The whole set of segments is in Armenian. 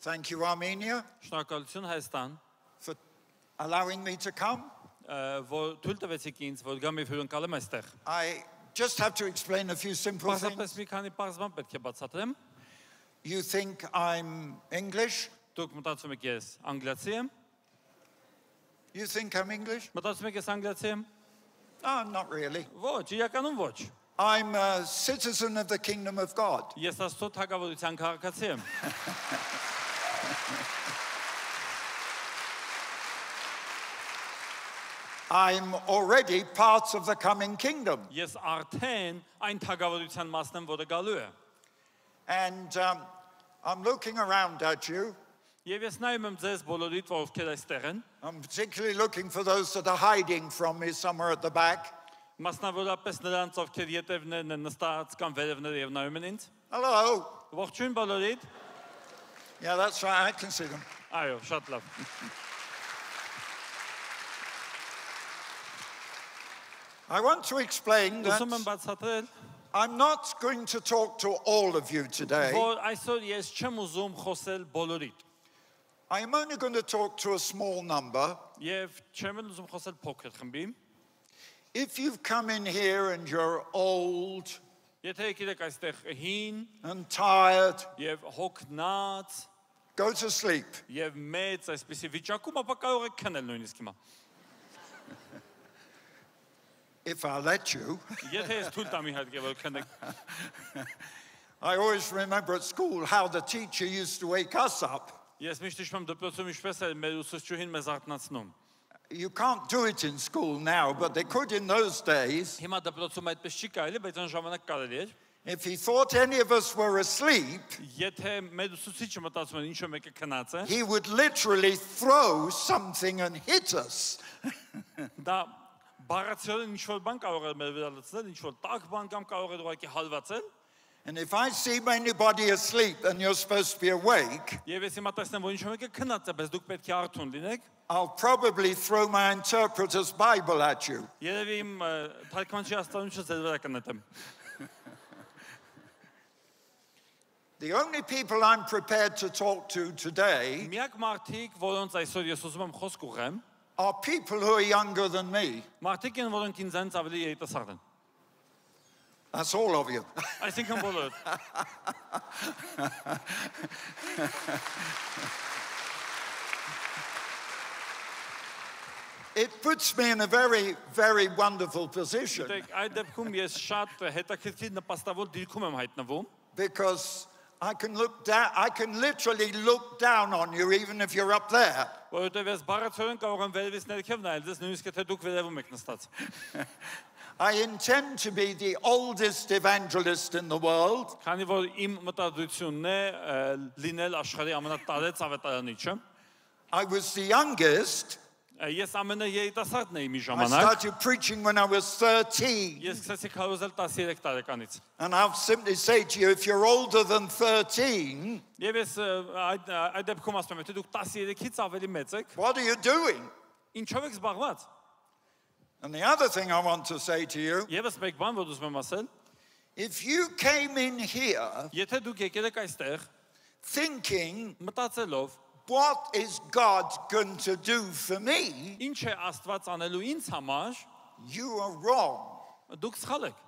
Thank you, Armenia, Շնորհակալություն Հայաստան, for allowing me to come. որ թույլ տվեցիք ինձ, որ գամ եւ հյուրընկալեմ այստեղ։ I just have to explain a few simple Պարզապես things. մի քանի բարձ բան պետք է բացատրեմ։ You think I'm English? Դուք մտածում եք ես անգլիացի եմ։ You think I'm English? Մտածում եք ես անգլիացի եմ։ Oh, not really. Ոչ, իրականում ոչ։ I'm a citizen of the kingdom of God. Ես Աստծո թագավորության քաղաքացի եմ։ I'm already part of the coming kingdom. Ես արդեն այն թագավորության մասն եմ, որը գալու է։ And I'm looking around at you. Եվ ես նայում եմ ձեզ բոլորիդ, որ ովքեր այստեղ են։ I'm particularly looking for those that are hiding from me somewhere at the back. Մասնավորապես նրանց, ովքեր ետևներն են նստած կամ վերևները եւ նայում են ինձ։ Hello. Ողջույն բոլորիդ։ Yeah, that's right. I can see them. Այո, շատ լավ։ I want to explain Ուզում եմ that բացատրել, I'm not going to talk to all of you today. որ այսօր ես չեմ ուզում խոսել բոլորիդ։ I'm only going to talk to a small number. Եվ չեմ էլ ուզում խոսել փոքր խմբի։ If you've come in here and you're old Եթե եկել եք այստեղ հին and tired, եւ հոգնած go to sleep. եւ մեծ այսպիսի վիճակում, ապա կարող եք քնել նույնիսկ հիմա։ If I let you. Եթե ես թույլ տամ իհարկե որ քնեք։ I always remember at school how the teacher used to wake us up. Ես միշտ հիշում եմ դպրոցում ինչպես էր մեր ուսուցչուհին մեզ արթնացնում։ You can't do it in school now, but they could in those days. Հիմա դպրոցում այդպես չի կարելի, բայց այն ժամանակ կարելի էր։ If he thought any of us were asleep, Եթե մեր ուսուցիչը մտածում էր ինչ-որ մեկը քնած է, he would literally throw something and hit us. դա բառացիորեն ինչ-որ բան կարող էր մեր վրա լցնել, ինչ-որ տաք բան կամ կարող էր ուղղակի հալվածել։ And if I see anybody asleep and you're supposed to be awake, Եվ ես հիմա տեսնեմ, որ ինչ-որ մեկը քնած է, բայց դուք պետք է արթուն լինեք, I'll probably throw my interpreter's Bible at you. երևի իմ թարգմանչի աստանունչը ձեր վրա կնետեմ։ The only people I'm prepared to talk to today Միակ մարդիկ, որոնց այսօր ես ուզում եմ խոսք ուղղեմ, are people who are younger than me. մարդիկ են, որոնք ինձանից ավելի երիտասարդ են։ That's all of you. Այսինքն բոլորը։ It puts me in a very, very wonderful position Դեք այդ դեպքում ես շատ հետաքրքիր նպաստավոր դիրքում եմ հայտնվում, because I can literally look down on you even if you're up there. որովհետև ես բառացիորեն կարող եմ վերևից ներքև նայել, ձեզ նույնիսկ եթե դուք վերևում եք նստած։ I intend to be the oldest evangelist in the world. Քանի որ իմ մտադրությունն է լինել աշխարհի ամենատարեց ավետարանիչը, I was the youngest. ես ամենաերիտասարդն եմ մի I ժամանակ։ started preaching when I was 13. Ես սկսեցի քարոզել 13 տարեկանից։ And I'll simply say to you, if you're older than 13, Եվ ես այդ դեպքում ասում եմ, եթե դուք 13-ից ավելի մեծ եք, what are you doing? ինչով եք զբաղված։ And the other thing I want to say to you, Եվս մեկ բան, որ ուզում եմ ասել, if you came in here եթե դուք եկել եք այստեղ thinking, մտածելով, what is God going to do for me? ինչ է Աստված անելու ինձ համար, You are wrong. դուք սխալ եք։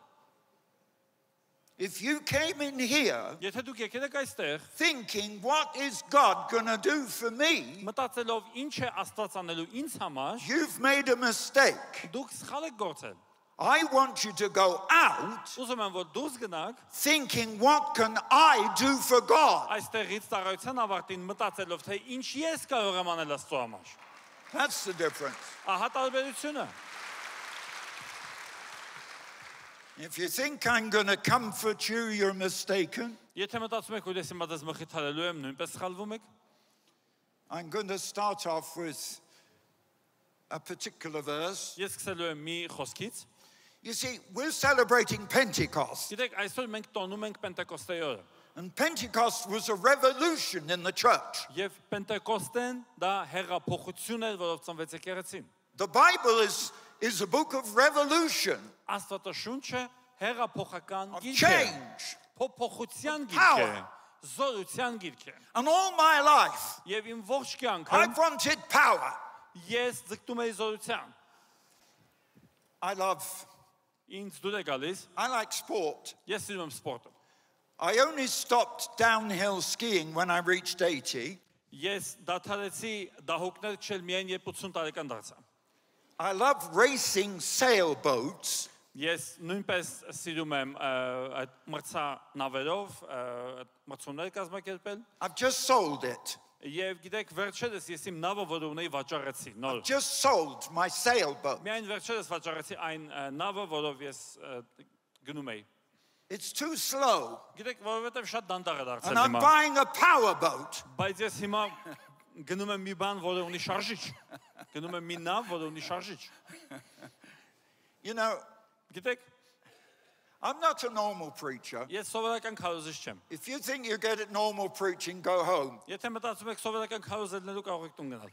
If you came in here Եթե դուք եկել եք այստեղ thinking, what is God going to do for me? մտածելով ինչ է Աստված անելու ինձ համար, You've made a mistake. դուք սխալ եք գործել։ I want you to go out Ուզում եմ, որ դուրս գնաք thinking, what can I do for God? այստեղից ծառայության ավարտին մտածելով, թե ինչ ես կարող եմ անել Աստծո համար։ That's the difference. Ահա տարբերությունը։ If you think I'm going to comfort you, you're mistaken. Եթե մտածում եք, որ ես հիմա դες մխիթարելու եմ, նույնպես սխալվում եք։ I'm going to start off with a particular verse. Ես սկսելու եմ մի խոսքից։ You see, we're celebrating Pentecost. Գիտեք, այսօր մենք տոնում ենք Պենտեկոստեի օրը։ And Pentecost was a revolution in the church. Եվ Պենտեկոստեն դա հեղափոխություն էր, որով ծնվեց եկեղեցին։ The Bible is a book of revolution, Աստվածաշունչը հեղափոխական of գիրք է, change. փոփոխության գիրք Power. է, զորության գիրք է։ And all my life, Եվ իմ ողջ կյանքը I've wanted power. ես ձգտում եի զորության։ I Ինձ դուր է գալիս, like sport. ես սիրում եմ սպորտը։ I only stopped downhill skiing when I reached 80. Ես դադարեցի դահուկներ քշել միայն երբ 80 տարեկան դարձա։ I love racing sailboats. Ես նույնպես սիրում եմ այդ մրցանավերով մրցումներ կազմակերպել։ I've just sold it. Եվ գիտեք, վերջերս ես իմ նավը, որ ունեի, վաճառեցի, նոր։ Just sold my sailboat. Միայն վերջերս վաճառեցի այն նավը, որով ես գնում էի։ It's too slow. Գիտեք, որովհետև շատ դանդաղ է And դարձել I'm հիմա։ buying a power boat. Բայց ես հիմա գնում եմ մի բան, որը ունի շարժիչ։ Գնում եմ մի նավ, որը ունի շարժիչ։ You know, Գիտեք, I'm not a normal preacher. ես սովորական քարոզիչ չեմ։ If you think you get it normal preaching, go home. Եթե մտածում եք սովորական քարոզելնելու կարող եք տուն գնալ։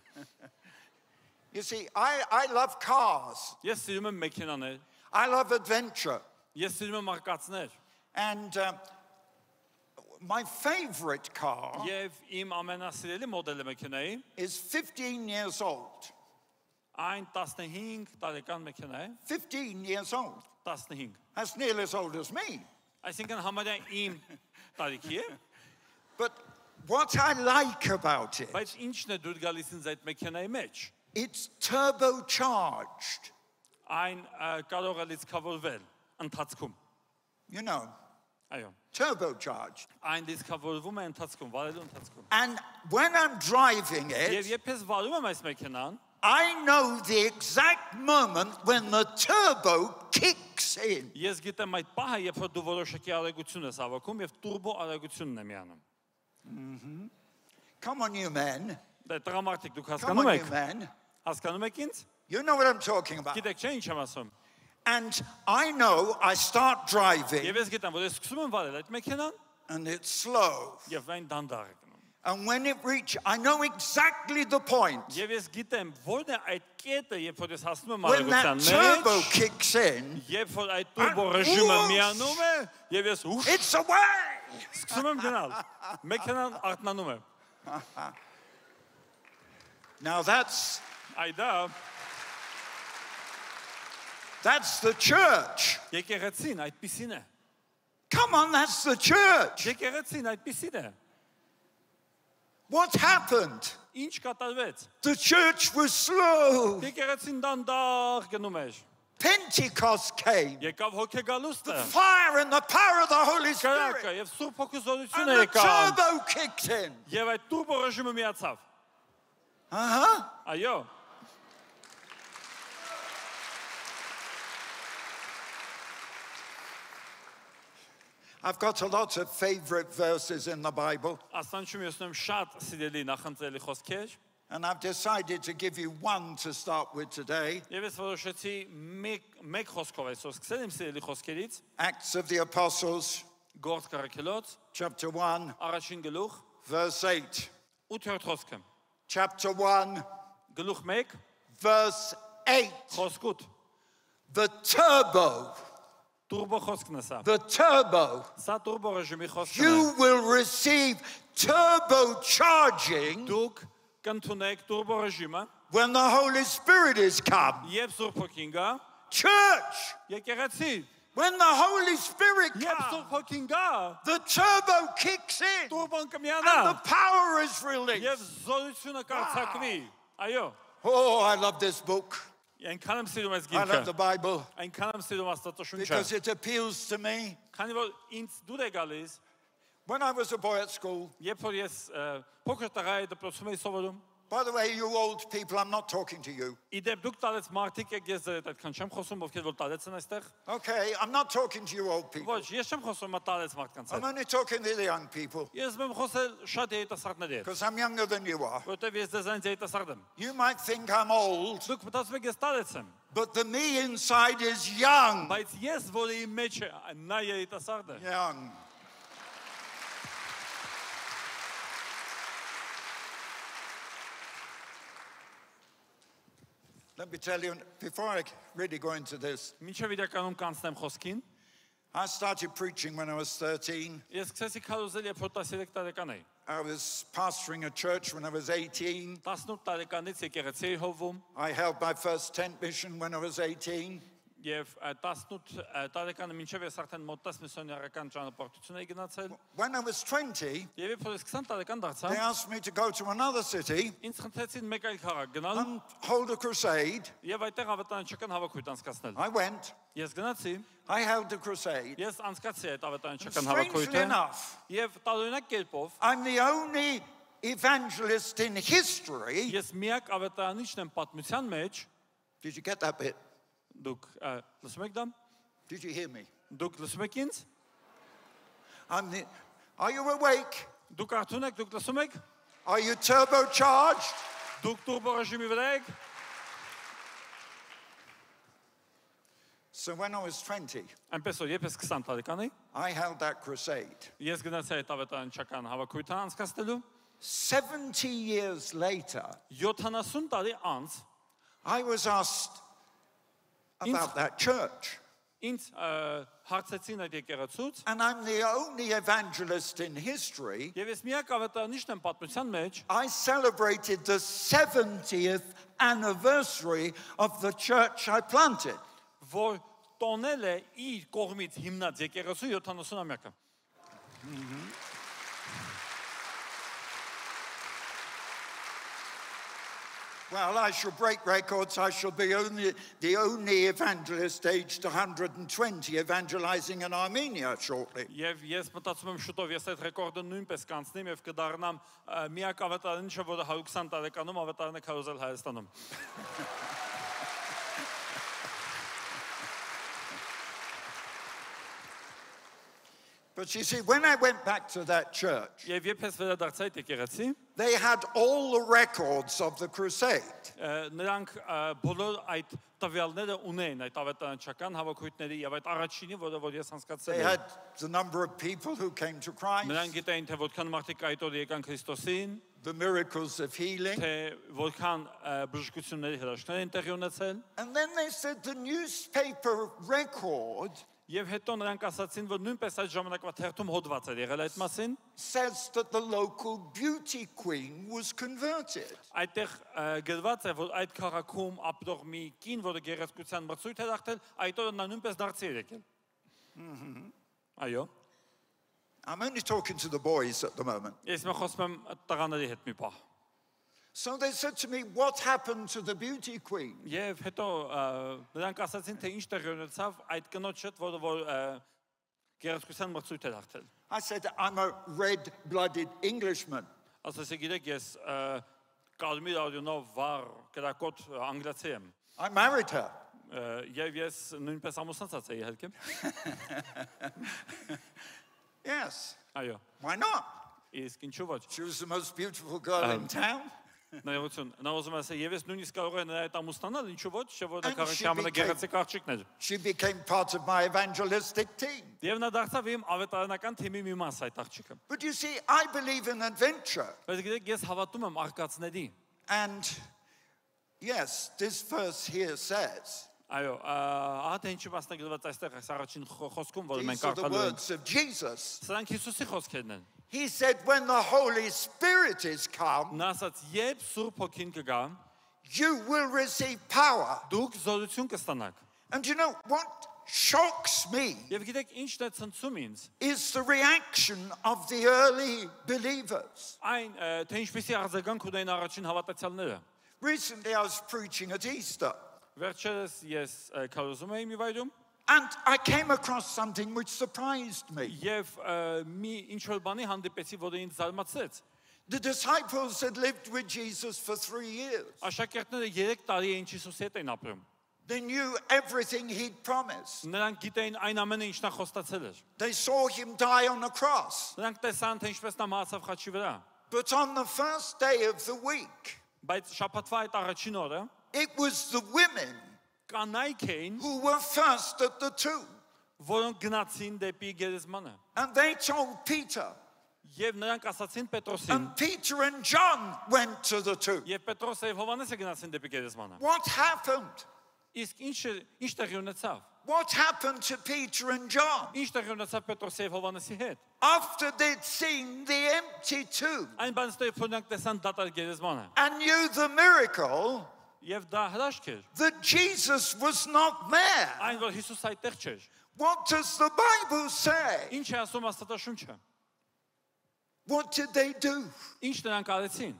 You see, I love cars. Ես սիրում եմ մեքենաներ, I love adventure. ես սիրում եմ արկածներ, And my favorite car եւ իմ ամենասիրելի մոդելը մեքենայի is 15 years old. այն 15 տարեկան մեքենա է, 15 years old. 15։ That's nearly as old as me. Այսինքն համարյա իմ տարիքի է, But what I like about it, բայց ինչն է դուր գալիս ինձ այդ մեքենայի մեջ։ it's turbocharged. Այն կարող է լիցքավորվել ընթացքում։ You know, Այո, turbocharged. այն լիցքավորվում է ընթացքում, վարելու ընթացքում։ And when I'm driving Եվ it, երբ ես վարում եմ այս մեքենան, I know the exact moment when the turbo kicks in. ես գիտեմ այդ պահը, երբ որ դու որոշակի արագություն ես հավաքում եւ տուրբո արագությունն է միանում։ Come on, you men. Դե տրամարտիկ դուք Come հասկանում on, you եք։ men. Հասկանում եք ինձ։ You know what I'm talking about. Գիտեք չէ ինչ եմ ասում։ And I know I start driving Եվ ես գիտեմ, որ ես սկսում եմ վարել այդ մեքենան and it's slow. եւ այն դանդաղ է գնում։ And when it reaches, I know exactly the point. Եվ ես գիտեմ, որն է այդ կետը, երբ որ ես հասնում եմ When that արագության turbo մեջ, kicks in, երբ որ այդ տուրբո ռեժիմը միանում է, եւ ես ուշ it's away. սկսում եմ գնալ։ Մեքենան արթնանում է։ Now that's the church. Եկեղեցին այդպիսին է։ Come on, that's the church. Եկեղեցին այդպիսին է։ What happened? Ինչ կատարվեց։ The church was slow. Եկեղեցին դանդաղ գնում էր։ Pentecost came. Եկավ հոգեգալուստը։ Fire and the power of the Holy Կրակը Spirit. եւ Սուրբ Հոգու And զորությունը the եկավ։ turbo kicked in. Եվ այդ տուրբո ռեժիմը միացավ։ Uh-huh. Այո։ I've got a lot of favorite verses in the Bible, Աստանջում ես ունեմ շատ սիրելի նախընտրելի խոսքեր, and I've decided to give you one to start with today. եւ ես որոշեցի մեկ խոսքով այսօր սկսել իմ սիրելի խոսքերից, Acts of the Apostles, Գործ Կարաքելոց, chapter 1, առաջին գլուխ, verse 8. 8-րդ խոսքը։ Chapter 1, Գլուխ 1, verse 8. խոսք 8։ The turbo, Տուրբո խոսքն է սա։ the turbo. Սա տուրբո ռեժիմի խոսքն է։ You will receive turbocharging Դուք կընդունեք տուրբո ռեժիմը, when the Holy Spirit is come. երբ Սուրբ Հոգին գա, Church, եկեղեցի, when the Holy Spirit երբ comes, Սուրբ Հոգին գա, the turbo kicks in տուրբոն and կմիանա the power is released. եւ զորությունը կարձակվի։ Այո, Oh, I love this book. այնքան եմ սիրում այս I love the գիրքը, Bible այնքան եմ սիրում Աստվածաշունչը, because it appeals to me. քանի որ ինձ դուր է gալիս, When I was a boy at school, երբ որ ես փոքր տղայի դպրոցում էի սովորում, by the way, you old people, I'm not talking to you. իդեպ դուք տարեց մարդիկ եք, ես ձեր հետ այդքան չեմ խոսում, ովքեր որ տարեց են այստեղ։ Okay, I'm not talking to you old people. Ոչ, ես չեմ խոսում տարեց մարդկանց I'm հետ։ only talking to the young people Ես եմ խոսել շատ երիտասարդների հետ, because I'm younger than you are. որովհետև ես ձեզանից երիտասարդ եմ։ You might think I'm old, Դուք մտածում եք ես տարեց եմ, but the me inside is young. բայց ես, որը իմ մեջ է, նա երիտասարդ է։ Young. Let me tell you, before I really go into this, Մինչև իրականում կանցնեմ խոսքին, I started preaching when I was 13. Ես սկսեցի քարոզել, երբ որ 13 տարեկան էի։ I was pastoring a church when I was 18. 18 տարեկանից եկեղեցի էի հովվում I held my first tent mission when I was 18. եւ 18 տարեկանը մինչեւ ես արդեն մոտ 10 միսիոներական ճանապարհություն էի գնացել։ When I was 20, Եվ երբ որ ես 20 տարեկան they դարձա, asked me to go to another city ինձ խնդրեցին մեկ այլ քաղաք գնալ and hold a crusade. եւ այդտեղ ավետարանչական հավաքույթ անցկացնել։ I went. Ես գնացի, I held a crusade. ես անցկացրի այդ ավետարանչական Strangely հավաքույթը enough, եւ տարօրինակ կերպով I'm the only evangelist in history. ես միակ ավետարանիչն եմ պատմության մեջ։ Did you get that bit? Դուք լսում եք դա։ Did you hear me? Դուք լսում եք ինձ։ Are you awake? Դուք արդյոք եք, դուք լսում եք։ Are you turbocharged? Դուք տուրբո ռեժիմի վրա եք։ So when I was 20, Այնպես որ երբ ես 20 տարեկան էի, I held that crusade. ես գնացի այդ ավետարանչական հավաքույթը անցկացնելու։ 70 years later, 70 տարի անց I was asked about that church. ինձ հարցեցին այդ եկեղեցուց, And I'm the only evangelist in history. եւ ես միակ ավետարանիչն եմ պատմության մեջ, I celebrated the 70th anniversary of the church I planted. որ տոնել է իր կողմից հիմնած եկեղեցու 70-ամյակը։ Well, I shall break records. I shall be the only evangelist aged 120 evangelizing in Armenia shortly. Եվ ես մտածում եմ շուտով ես այդ ռեկորդը նույնպես կանցնեմ եւ կդառնամ միակ ավետարանիչը, որը 120 տարեկանում ավետարան է քարոզել Հայաստանում։ But you see, when I went back to that church, Եվ երբ ես վերադարձա այդ եկեղեցի, they had all the records of the crusade. նրանք բոլոր այդ տվյալները ունեն այդ ավետարանչական հավաքույթների եւ այդ առաջինի, որ ես They անցկացրել had եմ։ the number of people who came to Christ, Նրանք գիտեին, թե որքան մարդիկ այդ օր եկան Քրիստոսին, the miracles of healing. թե որքան բժշկությունների հրաշքներ են տեղի ունեցել, And then they said the newspaper record եւ հետո նրանք ասացին, որ նույնպես այդ ժամանակվա թերթում հոդված էր եղել այդ մասին, says that the local beauty queen was converted. այդտեղ գրված է, որ այդ քաղաքում ապրող մի կին, որը գեղեցկության մրցույթ էր ախտել, այդ օրը նա նույնպես դարձի էր եկել։ Այո։ I'm only talking to the boys at the moment. Ես մը խոսում եմ տղաների հետ մի պահ։ So they said to me, what happened to the beauty queen? Եվ հետո նրանք ասացին, թե ինչ տեղի ունեցավ այդ կնոջ հետ, որ գեղեցկության մրցույթ էր ախտել։ I said, I'm a red-blooded Englishman. Ասացի, գիտեք, ես կարմիր արյունով վառ կրակոտ անգլիացի եմ։ I married her. Եվ ես նույնպես ամուսնացած էի իհարկե։ Yes. Այո։ Why not? Իսկ ինչու ոչ։ She was the most beautiful girl in town. Նայողություն, նա ուզում է ասել, եւ ես նույնիսկ կարող եմ նրա հետ ամուսնանալ, ինչու ոչ, չէ՞ որ դա And քաղաքի she ամենագեղեցիկ աղջիկն էր։ She became part of my evangelistic team. Եվ նա դարձավ իմ ավետարանական թիմի մի մաս այդ աղջիկը։ But you see, I believe in adventure. Բայց գիտեք, ես հավատում եմ արկածների։ And yes, this verse here says, Այո, ահա թե ինչի մասնագրված այստեղ այս առաջին խոսքում, որ these մենք are the կարդալու ենք։ words of Jesus. Սրանք Հիսուսի խոսքերն են։ He said, when the Holy Spirit is come, Նա ասաց, երբ Սուրբ Հոգին կգա, you will receive power. դուք զորություն կստանաք։ And you know what shocks me Եվ գիտեք, ինչն է ցնցում ինձ, is the reaction of the early believers. այն թե ինչպեսի արձագանք ունեն առաջին հավատացյալները։ Recently, I was preaching at Easter, Վերջերս ես քարոզում էի մի վայրում, and I came across something which surprised me. եւ մի ինչ որ բանի հանդիպեցի, որը ինձ զարմացրեց։ The disciples had lived with Jesus for 3 years. Աշակերտները 3 տարի էին Հիսուսի հետ են ապրում։ They knew everything he'd promised. Նրանք գիտեին այն ամենը, ինչ նա խոստացել էր։ They saw him die on the cross. Նրանք տեսան, թե ինչպես նա մահացավ խաչի վրա։ But on the first day of the week, Բայց շաբաթվա այդ առաջին օրը it was the women կանայք էին, who were first at the tomb. որոնք գնացին դեպի գերեզմանը։ And they told Peter. Եվ նրանք ասացին Պետրոսին, And Peter and John went to the tomb. եւ Պետրոսը եւ Հովհաննեսը գնացին դեպի գերեզմանը։ What happened? Իսկ ինչ տեղի ունեցավ։ What happened to Peter and John? Ինչ տեղի ունեցավ Պետրոսի եւ Հովհաննեսի հետ։ After they'd seen the empty tomb Այն բանից հետո փոնանք տեսան դատարկ գերեզմանը։ and knew the miracle, Եվ դա հրաշք էր։ that Jesus was not there. Այն որ Հիսուս այդտեղ չէր։ What does the Bible say? Ինչ է ասում Աստվածաշունչը։ What did they do? Ինչ նրանք արեցին։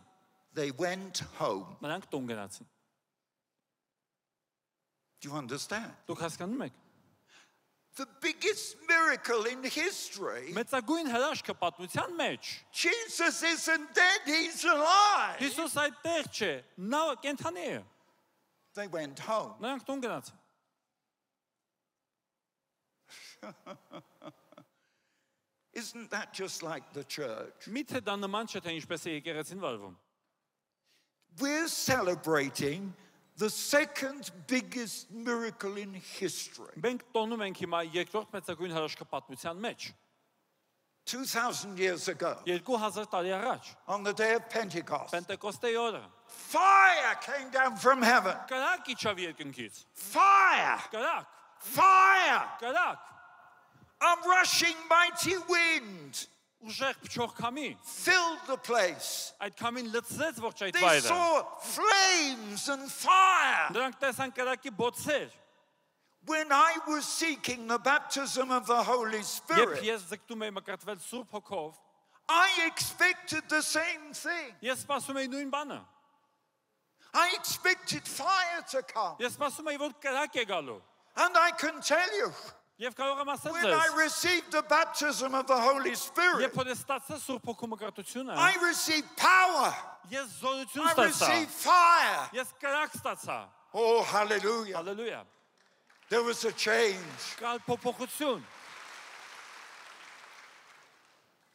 They went home. Նրանք տուն գնացին։ Do you understand? Դուք հասկանում եք։ The biggest miracle in history. Մեծագույն հրաշքը պատմության մեջ։ Jesus isn't dead, he's alive. Հիսուս այդտեղ չէ, նա կենթանի է։ They went home. Նրանք տուն գնացին։ Isn't that just like the church? Միթե դա նման չէ թե ինչպես է եկեղեցին վարվում։ We're celebrating the second biggest miracle in history. Մենք տոնում ենք հիմա երկրորդ մեծագույն հրաշքը պատմության մեջ։ 2,000 years ago, 2000 տարի առաջ, on the day of Pentecost, Պենտեկոստեի օրը, fire came down from heaven. կրակ իջավ երկնքից։ Fire! Կրակ, Fire! կրակ, A rushing mighty wind ուժեղ փչող քամի, filled the place. այդ քամին լցրեց ողջ այդ They վայրը։ saw flames and fire. Նրանք տեսան կրակի բոցեր։ When I was seeking the baptism of the Holy Երբ Spirit, ես ձգտում էի մկրտվել Սուրբ Հոգով, I expected the same thing. ես սպասում էի նույն բանը։ I expected fire to come. Ես սպասում էի, որ կրակ է գալու։ And I can tell you, Եվ կարող եմ ասել when ձեզ, I received the baptism of the Holy Spirit, երբ որ ես ստացա Սուրբ Հոգու մկրտությունը, I received power. ես զորություն I ստացա։ received fire. Ես կրակ ստացա։ Oh, hallelujah. Հալելույա։ There was a change. Կալ փոփոխություն։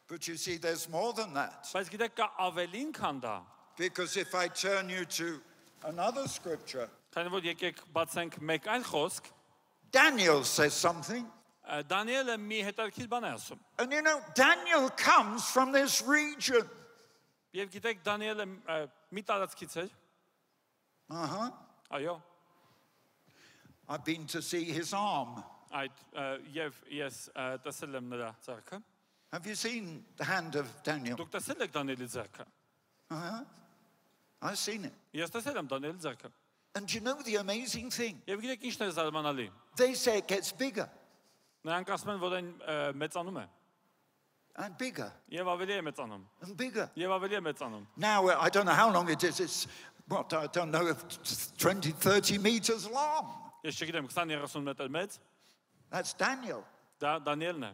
But you see, there's more than that. Բայց գիտեք կա ավելին քան դա։ Because if I turn you to another scripture, Քանի որ եկեք բացենք մեկ այլ խոսք, Daniel says something. Դանիելը մի հետաքրքիր բան է ասում։ And you know, Daniel comes from this region. Եվ գիտեք Դանիելը մի տարածքից էր։ Uh-huh. Այո։ I've been to see his arm. Այդ եւ ես տեսել եմ նրա ձեռքը։ Have you seen the hand of Daniel? Դուք տեսել եք Դանիելի ձեռքը։ Uh-huh. I've seen it. Ես տեսել եմ Դանիելի ձեռքը։ And you know the amazing thing? Եվ գիտեք ինչն է զարմանալի։ They say it gets bigger Նրանք ասում են, որ այն մեծանում է։ and bigger Եվ ավելի է մեծանում։ and bigger. Եվ ավելի է մեծանում։ Now, I don't know how long it is. It's, what, I don't know, if it's 20, 30 meters long. Ես չգիտեմ 20-30 մետր մեծ, That's Daniel. դա Դանիելն է։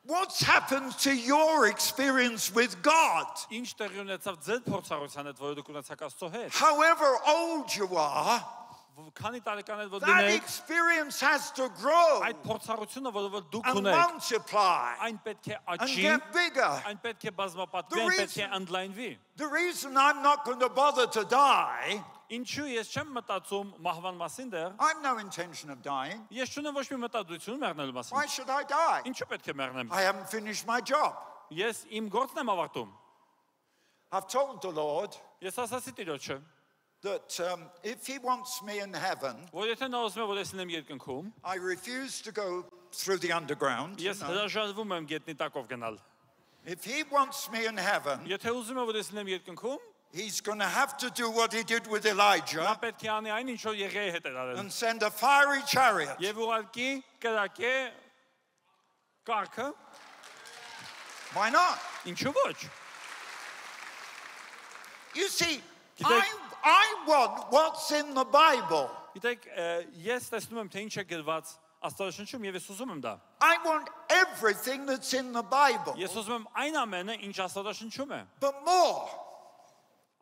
What's happened to your experience with God? Ինչ տեղի ունեցավ ձեր փորձառության հետ, որը դուք ունեցաք Աստծո հետ։ However old you are, Քանի տարեկան եք որ that դինեք, experience has to grow այդ փորձառությունը, որը դուք and ունեք, multiply այն պետք է and աճի, get bigger. այն պետք է բազմապատկվի, The այն պետք է reason- ընդլայնվի։ The reason I'm not going to bother to die, Ինչու ես չեմ մտածում մահվան մասին դեռ, I have no intention of dying. ես չունեմ ոչ մի մտադրություն մեռնելու մասին։ Why should I die? Ինչու պետք է մեռնեմ։ I haven't finished my job. Ես իմ գործն եմ ավարտում։ I've told the Lord Ես ասացի Տիրոջը, that if he wants me in heaven, որ եթե նա ուզում է որ ես լինեմ երկնքում, I refuse to go through the underground. ես հրաժարվում եմ գետնի տակով գնալ։ If he wants me in heaven, Եթե ուզում է որ ես լինեմ երկնքում, he's going to have to do what he did with նա Elijah պետք է անի այն ինչ որ Եղիայի հետ էր արել։ and send a fiery chariot. Եվ ուղարկի կրակե կառքը, Why not? ինչու ոչ։ You see, Gidek- I want what's in the Bible. Գիտեք, ես տեսնում եմ թե ինչ է գրված Աստվածաշնչում եւ ես ուզում եմ դա։ I want everything that's in the Bible. Ես ուզում եմ այն ամենը, ինչ Աստվածաշնչում է։ But more,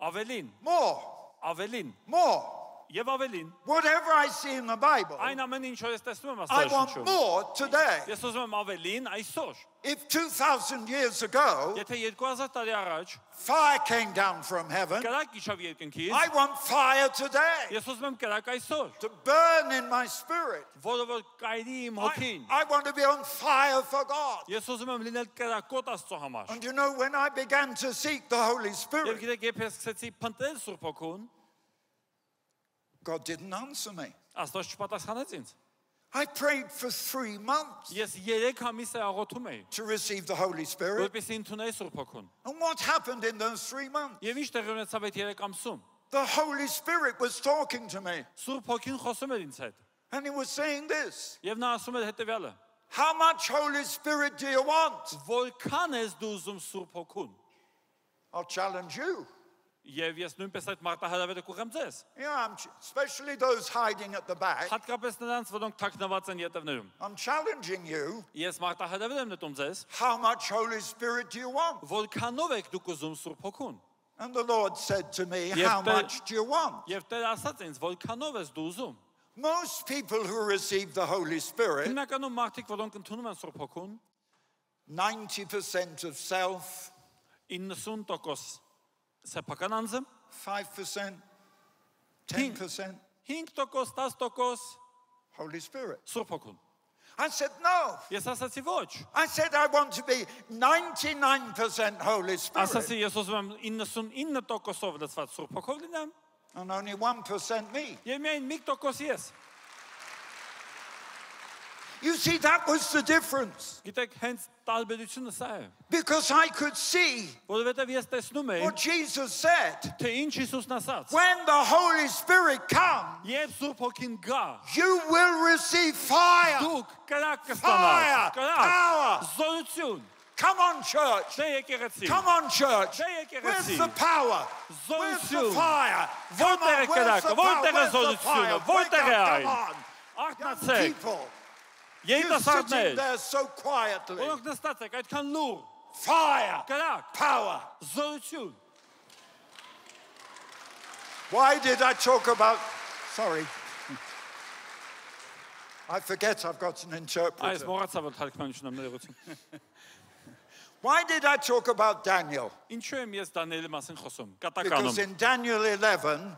Ավելին, more, ավելին more. եւ ավելին։ Whatever I see in the Bible, Այն ամենը, ինչ որ ես տեսնում եմ I want Աստվածաշնչում։ more today. Ես ուզում եմ ավելին այսօր։ If 2,000 years ago, Եթե 2000 տարի առաջ fire came down from heaven, կրակ իջավ երկնքից, I want fire today ես ուզում եմ կրակ այսօր, to burn in my spirit. որը որ կայրի իմ հոգին։ I want to be on fire for God. Ես ուզում եմ լինել կրակոտ Աստծո համար։ And you know, when I began to seek the Holy Եվ Spirit, գիտեք, երբ ես սկսեցի փնտրել Սուրբ Հոգուն, God didn't answer me. Աստված չպատասխանեց ինձ։ I prayed for 3 months Ես 3 ամիս է աղոթում էի, to receive the Holy Spirit. որպեսզի ընդունեի Սուրբ Հոգուն։ And what happened in those 3 months? Եվ ինչ տեղի ունեցավ այդ 3 ամսում։ The Holy Spirit was talking to me. Սուրբ Հոգին խոսում էր ինձ հետ։ And he was saying this. Եվ նա ասում էր հետևյալը. How much Holy Spirit do you want? Որքան ես դու ուզում Սուրբ Հոգուն։ I'll challenge you. Եվ ես նույնպես այդ մարտահրավերը կուղեմ ձեզ։ Yeah, especially those hiding at the back. Հատկապես նրանց, որոնք թաքնված են ետևներում։ I'm challenging you. Ես մարտահրավեր եմ նետում ձեզ, How much Holy Spirit do you want? որքանով եք դուք ուզում Սուրբ Հոգուն։ And the Lord said to me, Yes, how but- much do you want? Եվ Տերը ասաց ինձ, որքանով ես դու ուզում։ Most people who receive the Holy Spirit, Հիմնականում մարդիկ, որոնք ընդունում են Սուրբ Հոգուն, 90% of self, 90% սեփական անձը, 5%, 10% 5%, 10% Holy Spirit. Սուրբ Հոգուն։ I said, no. Ես ասացի ոչ։ I said, I want to be 99% Holy Spirit Ասացի ես ուզում եմ 99%-ով լցված Սուրբ Հոգով լինեմ, and only 1% me. եւ միայն 1% ես։ You see, that was the difference. Գիտեք, հենց տարբերությունը սա է, Because I could see որովհետեւ ես տեսնում եմ, what Jesus said. թե ինչ Հիսուսն ասաց։ When the Holy Spirit comes, Երբ Սուրբ Հոգին գա, you will receive fire. դուք կրակ Fire, կստանաք, կրակ, power. զորություն, Come on, church. դե եկեղեցի, Come on, church. դե Where's եկեղեցի, the power? Where's the զորություն, fire? Come որտեղ է on, where's կրակը, the power? որտեղ է Where's the զորությունը, fire? Wake որտեղ է up, այն, come on. Young արթնացեք, people, you're sitting երիտասարդներ, there so quietly. որոնք նստած եք այդքան լուր, Fire, կրակ, power. զորություն։ Why did I talk about... Sorry. I forget I've got an Այս interpreter. մոռացա որ թարգմանություն եմ ներողություն։ Why did I talk about Daniel? Ինչու եմ ես Դանիելի մասին խոսում։ Because Կատականում։ in Daniel 11,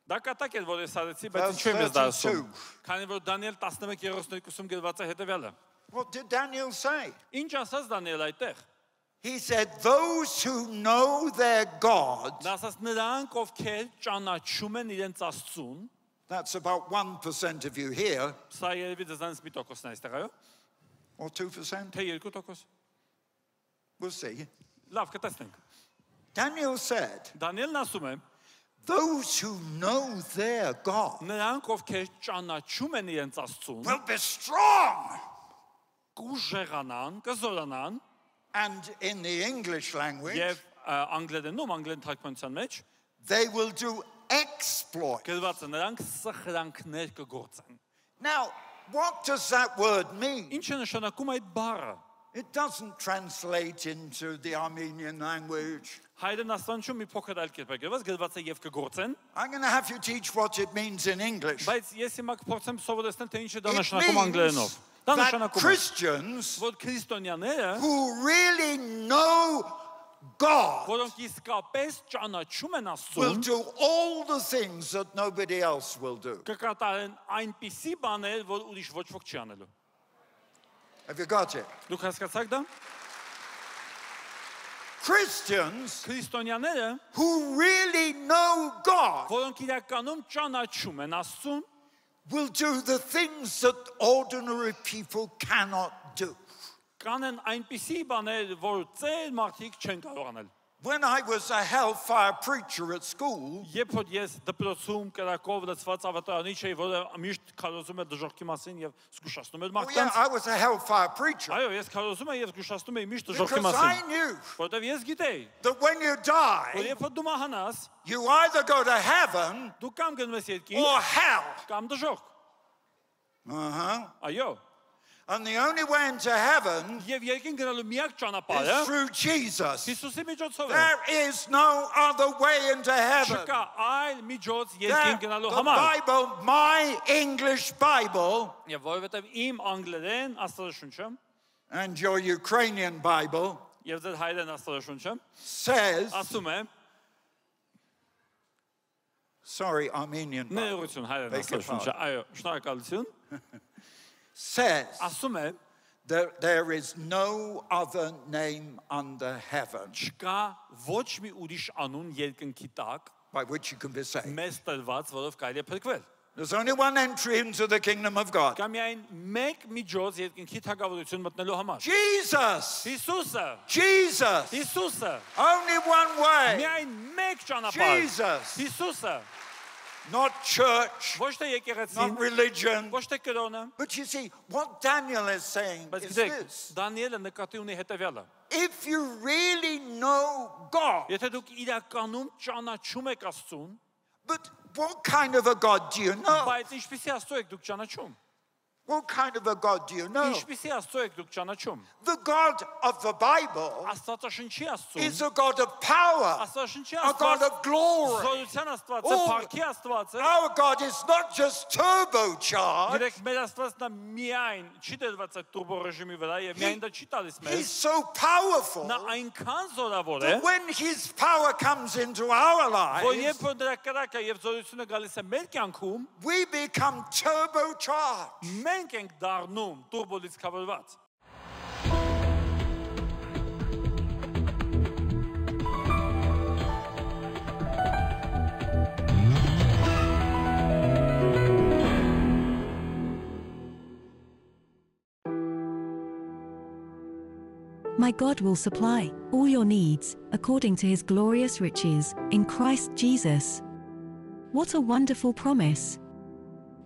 Դա կատակ է որ ես ասացի, բայց Verse ինչու եմ ես դա 32. ասում։ Քանի որ Դանիել 11:32-ում գրված է հետևյալը։ what did Daniel say? Ինչ ասաց Դանիել այդտեղ։ He said, those who know their God, Նա ասաց նրանք ովքեր ճանաչում են իրենց Աստծուն, that's about 1% of you here, սա երևի դզանց մի տոկոսն է այստեղ, այո։ or 2%, Թե 2%։ we'll see. Լավ, կտեսնենք։ Daniel said, Դանիելն ասում է, those who know their God նրանք ովքեր ճանաչում են իրենց Աստծուն, will be strong. կուժեղանան, կզորանան, And in the English language, եւ անգլերենում, անգլերեն թարգմանության մեջ they will do exploit. գրված է նրանք սխրանքներ կգործեն։ Now, what does that word mean? Ինչ է նշանակում այդ բառը։ It doesn't translate into the Armenian language. Հայերեն աստանչում մի փոքր այլ կերպ է գրված, գրված է եւ կգործեն, I'm going to have you teach what it means in English. բայց ես հիմա կփորձեմ սովորեցնել թե ինչ է դա It նշանակում անգլերենով։ means Դա that նշանակում է, Christians որ քրիստոնյաները, who really know God որոնք իսկապես ճանաչում են will Աստծուն, do all the things that nobody else will do. կկատարեն այնպիսի բաներ, որ ուրիշ ոչ ոք չի անելու։ Have you got it? Դուք հասկացաք դա։ Christians Քրիստոնյաները, who really know God որոնք իրականում ճանաչում են Աստծուն, will do the things that ordinary people cannot do. կանեն այնպիսի բաներ, որ ծեր մարդիկ չեն կարող անել։ When I was a hellfire preacher at school, Երբ որ ես դպրոցում կրակով լցված ավետարանի չէի, որը միշտ քարոզում էր դժոխքի մասին եւ զգուշացնում էր oh yeah, մարդկանց, I was a hellfire preacher այո, ես քարոզում եմ եւ զգուշացնում եմ միշտ դժոխքի because I մասին, knew որովհետեւ ես գիտեի, that when you որ die, երբ որ դու մահանաս, you either go to heaven դու կամ գնում ես երկինք, or hell. կամ դժոխք։ Այո, And the only way into heaven եւ երկինք գնալու միակ is ճանապարհը through Jesus. Հիսուսի միջոցով է։ There is no other way into heaven. Չկա այլ միջոց There, երկինք գնալու the համար։ Bible, my English Bible Եվ որովհետեւ իմ անգլերեն աստվածաշունչը and your Ukrainian Bible եւ ձեր հայերեն աստվածաշունչը says, ասում է sorry, Armenian Bible, ներողություն հայերեն Beg your աստվածաշունչը, այո, շնորհակալություն, says ասում է that there is no other name under heaven չկա ոչ մի ուրիշ անուն երկնքի տակ by which you can be saved. մեզ տրված, որով կարելի է փրկվել։ There's only one entry into the kingdom of God. Կա միայն մեկ միջոց երկնքի թագավորություն մտնելու համար։ Jesus. Հիսուսը, Jesus. Հիսուսը, Only one way. միայն մեկ ճանապարհ։ Jesus. Հիսուսը, Not church, ոչ թե եկեղեցին, not religion. ոչ թե կրոնը, But you see, what Daniel is saying բայց is գիտեք, this. Դանիելը նկատի ունի հետևյալը։ If you really know God, Եթե դուք իրականում ճանաչում եք Աստծուն, but what kind of a God do you know? բայց ինչպիսի Աստծո եք դուք ճանաչում։ What kind of a God do you know? Ինչպիսի Աստծո եք դուք ճանաչում։ The God of the Bible Աստվածաշնչի is Աստծուն, a God of power, Աստվածաշնչի a God Աստված, of glory. զորության Աստված է, Oh. փառքի Աստված է։ Our God is not just turbocharged, Գիտեք, մեր Աստվածն է միայն չի դրված այդ տուրբո ռեժիմի վրա եւ միայն դա չի տալիս He's մեզ։ so powerful Նա այնքան զորավոր է, that when His power comes into our որ lives, երբ որ դրա կրակը եւ զորությունը գալիս է մեր կյանքում, we become turbocharged. մենք ենք դառնում տուրբո լիցքավորված։ My God will supply all your needs according to his glorious riches in Christ Jesus. What a wonderful promise!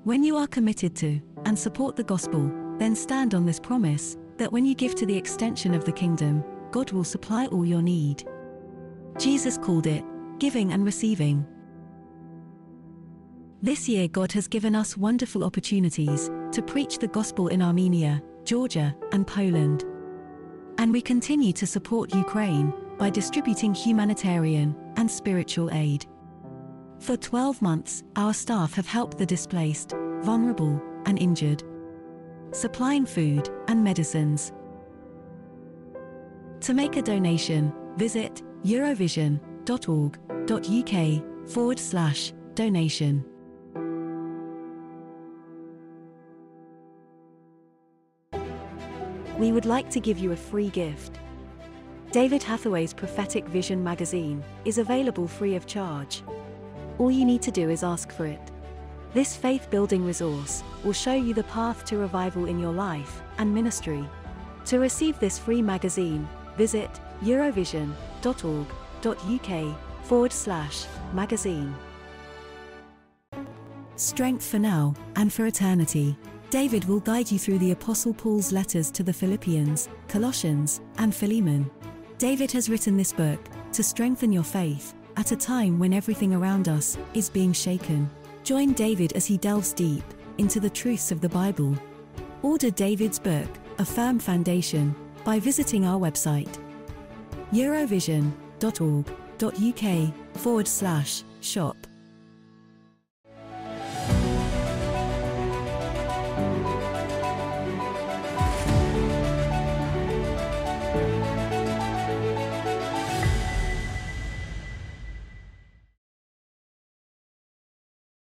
When you are committed to and support the gospel, then stand on this promise that when you give to the extension of the kingdom, God will supply all your need. Jesus called it giving and receiving. This year, God has given us wonderful opportunities to preach the gospel in Armenia, Georgia, and Poland. And we continue to support Ukraine by distributing humanitarian and spiritual aid. For 12 months, our staff have helped the displaced, vulnerable, and injured, supplying food and medicines. To make a donation, visit eurovision.org.uk/donation. We would like to give you a free gift. David Hathaway's Prophetic Vision magazine is available free of charge. All you need to do is ask for it. This faith-building resource will show you the path to revival in your life and ministry. To receive this free magazine, visit eurovision.org.uk/magazine. Strength for now and for eternity. David will guide you through the Apostle Paul's letters to the Philippians, Colossians, and Philemon. David has written this book to strengthen your faith at a time when everything around us is being shaken. Join David as he delves deep into the truths of the Bible. Order David's book, A Firm Foundation, by visiting our website, eurovision.org.uk/shop.